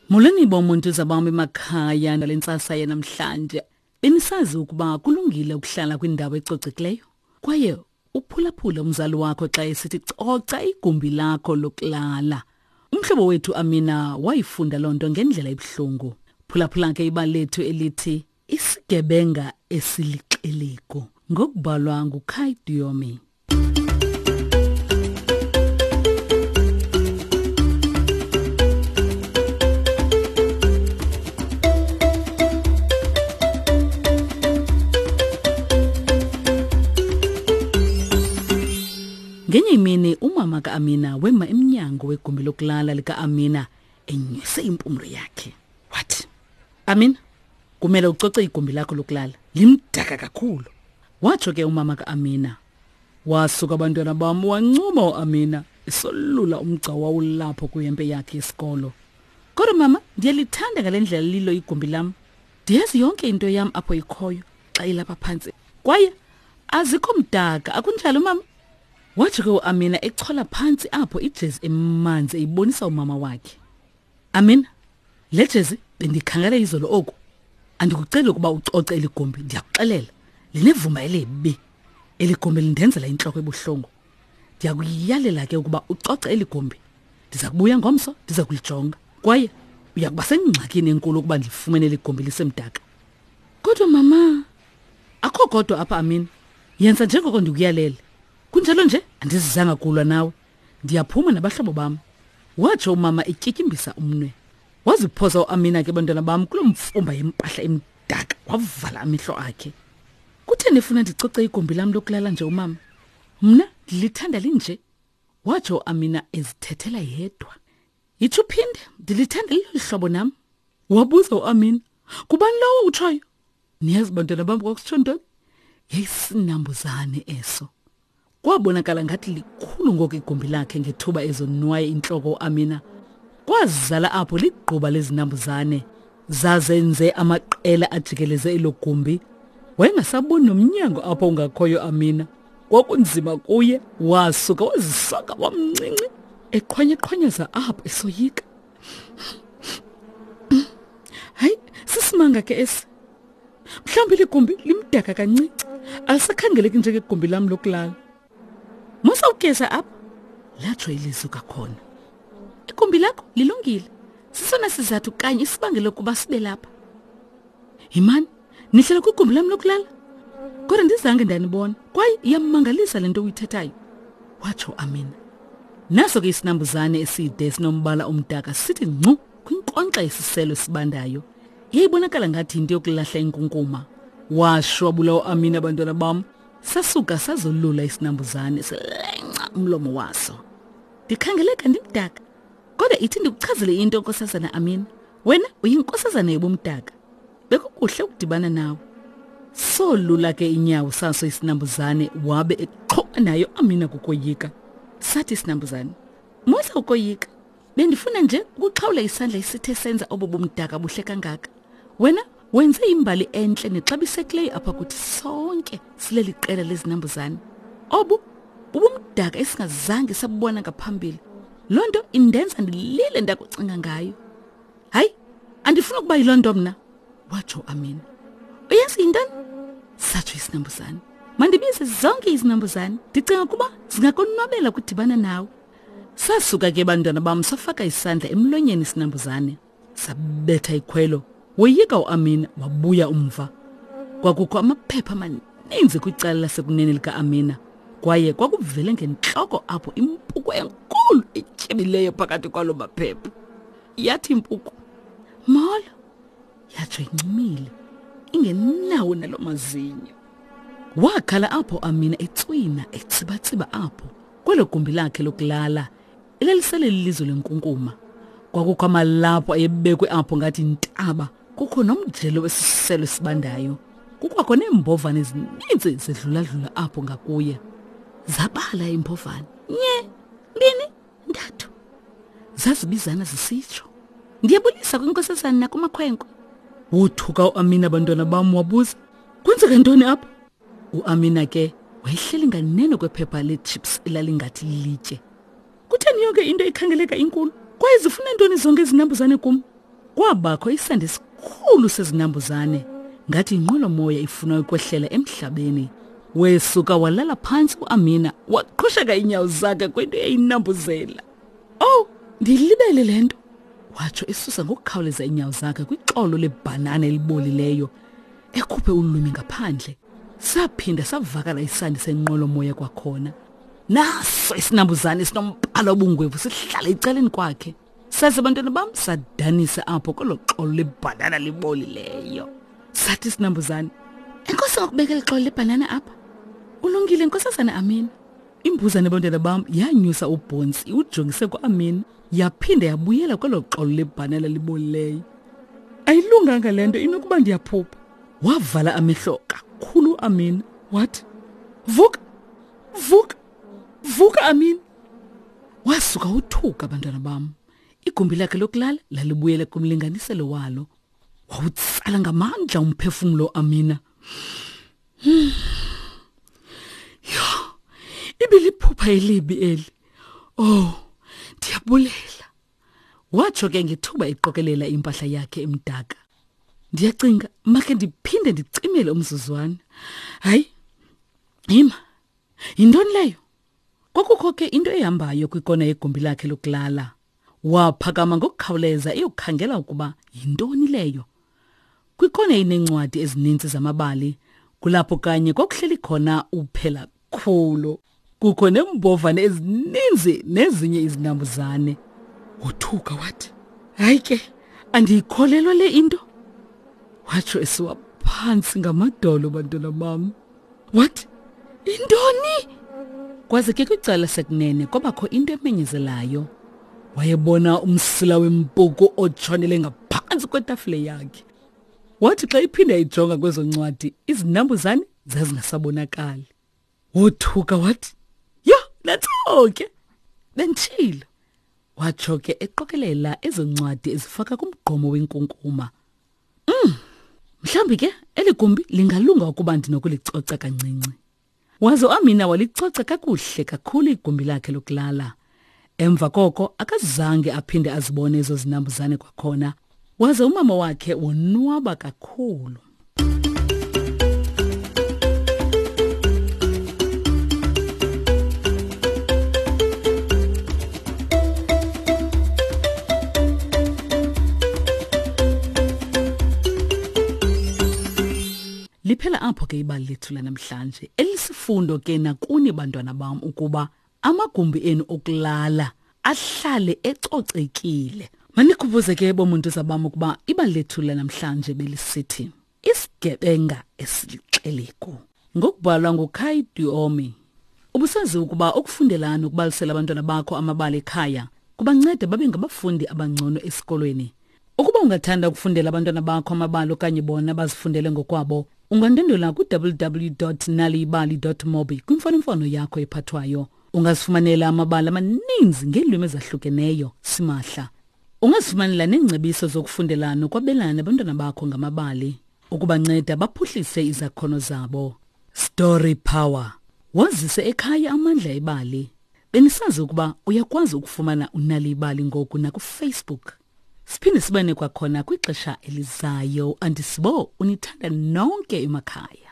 Molweni bomuntu zabami emakhaya nale ntsasa yanamhlanje. Benisazi ukuba kulungile ukuhlala kwindawo ecocekileyo kwaye uphulaphule umzali wakho xa esithi coca igumbi lakho lokulala. Umhlobo wethu Amina wayifunda loo nto ngendlela ebuhlungu. Phulaphula ke ibali lethu elithi Isigebenga esilixelegu ngokubhalwa nguKai Diomi. Ngenye imini umama kaAmina wema emnyango wegumbi lokulala likaAmina enyuse impumlo yakhe. Wathi, Amina, kumele ucoce igumbi lakho lokulala limdaka kakhulu. Watsho ke umama kaAmina. Wasuka abantwana bam wancuma uAmina esolula umgca wawulapho kwihempe yakhe yesikolo. Kodwa mama, ndiyalithanda ngale ndlela lilo igumbi lam. Ndiyazi yonke into yam apho ikhoyo xa ilapha phantsi. Kwaye azikho mdaka, akunjalo mama? Watsho ke uAmina echola phantsi apho ijezi emanzi eyibonisa umama wakhe. Amina, le jezi bendikhangela izolo oku. Andikuceli ukuba ucoce eli gumbi, ndiyakuxelela. Linevumba elibi. Eli gumbi lindenzela intloko ebuhlungu. Ndiyakuyalela ke ukuba ucoce eli gumbi. Ndiza kubuya ngomso, ndiza kulijonga. Kwaye uya kuba sengxakini enkulu ukuba ndilifumene eli gumbi lisemdaka. Kodwa mama, akho kodwa apha Amina. Yenza njengoko ndikuyalele. Kunjalo nje andizizanga kulwa nawe. Ndiyaphuma nabahlobo bam. Watsho umama etyityimbisa umnwe. Waziphosa uAmina ke bantwana bam kuloo mfumba yempahla emdaka wavala amehlo akhe. Kutheni efuna ndicoce igumbi lam lokulala nje umama? Mna ndilithanda linje. Watsho uAmina ezithethela yedwa. Yitsho uphinde, ndilithanda lilolu hlobo nam. Wabuza uAmina, Kubani lowo utshoyo? Niyazi bantwana bam kwakusitsho ntoni? Yayisinambuzane eso. Kwabonakala ngathi likhulu ngoku igumbi lakhe ngethuba ezonwaye intloko uAmina. Kwazala apho ligquba lezinambuzane zazenze amaqela ajikeleze elo gumbi. Wayengasaboni nomnyango apho ungakhoyo Amina. Kwakunzima kuye, wasuka wazisaka wamncinci eqhwanyeqhwanyeza apho esoyika. Hayi, sisimanga ke esi. Mhlawumbi ligumbi limdaka kancinci. Alisakhangeleki njengegumbi lam lokulala. Musa ukugeza apha, latsho ilizwi kakhona. Igumbi lakho lilungile. Sisona sizathu kanye isibangele ukuba sibe lapha. Yimani, nihlala kwigumbi lam lokulala? Kodwa ndizange ndanibona kwaye iyamangalisa le nto uyithethayo, watsho Amina. Naso ke isinambuzane eside esinombala omdaka sithi ngcu kwinkonkxa yesiselo esibandayo. Yayibonakala ngathi yinto yokulahla inkunkuma. Washwabula uAmina abantwana bam. Sasuka sazolula isinambuzane silenca umlomo waso. Ndikhangeleka ndimdaka. Kodwa ithi ndikuchazele into nkosazana Amina. Wena uyinkosazana yobumdaka. Bekukuhle ukudibana nawe. Solula ke inyawo saso isinambuzane wabe eqhuba nayo Amina kukoyika. Sathi isinambuzane, "Musa ukoyika. Bendifuna nje ukuxhawula isandla esithe senza obo bumdaka buhle kangaka. Wena wenze imbali entle nexabisekileyo apha kuthi sonke sileli qela lezinambuzane. Obu bubumdaka esingazange sabubona ngaphambili. Loo nto indenza ndilile ndakucinga ngayo. Hayi, andifuni ukuba yiloo nto mna, watsho Amina. Uyazi yintoni? Satsho isinambuzane. Mandibize zonke izinambuzane. Ndicinga ukuba zingakonwabela ukudibana nawe. Sasuka ke bantwana bam safaka isandla emlonyeni isinambuzane. Sabetha ikhwelo. Woyika uAmina wabuya umva. Kwakukho amaphepha amaninzi kwicala lasekunene likaAmina. Kwaye kwakuvele ngentloko apho impuku enkulu etyebileyo phakathi kwalo maphepha. Yathi impuku, "Molo." Yatsho incumile, ingenawo nalo mazinyo. Wakhala apho Amina etswina etsibatsiba apho kwelo gumbi lakhe lokulala elalisele lilizwe lenkunkuma. Kwakukho amalaphu ayebekwe apho ngathi intaba, kukho nomjelo wesiselo esibandayo. Kukwakho neembovane ezininzi zidluladlula apho ngakuye. Zabala iimbovane. Nye, mbini, ntathu. Zazibizana zisitsho. Ndiyabulisa kwinkosazana nakumakhwenkwe. Wothuka uAmina abantwana bam wabuza, "Kwenzeka ntoni apha?" UAmina ke wayehleli nganeno kwephepha leechips elalingathi lilitye. Kutheni yonke into ikhangeleka inkulu? Kwaye zifuna ntoni zonke izinambuzane kum? Kwabakho isandi esikhulu sezinambuzane ngathi inqwelomoya ifuna ukwehlela emhlabeni. Wesuka walala phantsi uAmina waqhusheka iinyawo zakhe kwinto eyinambuzela. Oh, ndilibele le nto, watsho esusa ngokukhawuleza iinyawo zakhe kwixolo lebhanana elibolileyo, ekhuphe ulwimi ngaphandle. Saphinda savakala isandi senqwelomoya kwakhona. Naso isinambuzane esinombala obungwevu sihlala ecaleni kwakhe. Saze bantwana bam sadanisa apho kwelo xolo lebhanana libolileyo. Sathi isinambuzane, enkosi ngokubekela ixolo lebhanana apha. Ulungile nkosazana Amina. Imbuzane bantwana bam yanyusa ubhontsi iwujongise kuAmina yaphinda yabuyela kwelo xolo lebhanana libolileyo. Ayilunganga le nto inokuba ndiyaphupha. Wavala amehlo kakhulu uAmina wathi, Vuka! Vuka! Vuka Amina! Wasuka uthuka bantwana bam. Igumbi lakhe lokulala lalibuyele kumlinganiselo walo. Wawutsala ngamandla umphefumlo Amina. Yho, ibiliphupha elibi eli. Oh, ndiyabulela. Watsho ke ngethuba eqokelela impahla yakhe emdaka. Ndiyacinga makhe ndiphinde ndicimele umzuzwana. Hayi, yima. Yintoni leyo? Kwakukho ke into ehambayo kwikona yegumbi lakhe lokulala. Waphakama ngokukhawuleza eyokukhangela ukuba yintoni leyo. Kwikona ineencwadi ezininzi zamabali, kulapho kanye kwakuhleli khona uphela khulu. Kukho neembovane ezininzi nezinye izinambuzane. Wothuka wathi, hayi ke, andiyikholelwa le into. Watsho esiwa phantsi ngamadolo bantwana bam. What? Intoni? Kwaze ke kwicala sekunene kwabakho into emenyezelayo. Wayebona umsila wempuku otshonele ngaphantsi kwetafile yakhe. Wathi xa iphinda ijonga kwezo ncwadi, izinambuzane zazingasabonakali. Wothuka wathi, "Yho, nantso ke." Benditshilo. Watsho ke eqokelela ezo ncwadi ezifaka kumgqomo wenkunkuma. Mhlawumbi ke eli gumbi lingalunga ukuba ndinokulicoca kancinci. Waze uAmina walicoca kakuhle kakhulu igumbi lakhe lokulala. Emva koko akazange aphinde azibone ezo zinambuzane kwakhona. Waze umama wakhe wonwaba kakhulu. Liphela apho ke ibali lethu lanamhlanje elisifundo ke nakuni bantwana bam ukuba amagumbi enu okulala ahlale ecocekile. Manikhumbuze ke bomuntu zabam ukuba ibali lethu lanamhlanje belisithi Isigebenga esilixelegu ngokubhalwa nguKai Duomi. Ubusazi ukuba ukufundela nokubalisela abantwana bakho amabali ekhaya kubanceda babe ngabafundi abangcono esikolweni. Ukuba ungathanda ukufundela abantwana bakho amabali okanye bona bazifundele ngokwabo, ungandwendwela ku-www.naliyibali.mobi kwimfonomfono yakho ephathwayo. Ungazifumanela amabali amaninzi ngeelwimi ezahlukeneyo simahla. Ungazifumanela neengcebiso zokufundela nokwabelana nabantwana bakho ngamabali ukubanceda baphuhlise izakhono zabo. Story Power. Wazise ekhaya amandla ebali. Benisazi ukuba uyakwazi ukufumana unali ibali ngoku nakuFacebook. Siphinde sibane kwakhona kwixesha elizayo. Andisibo unithanda nonke emakhaya.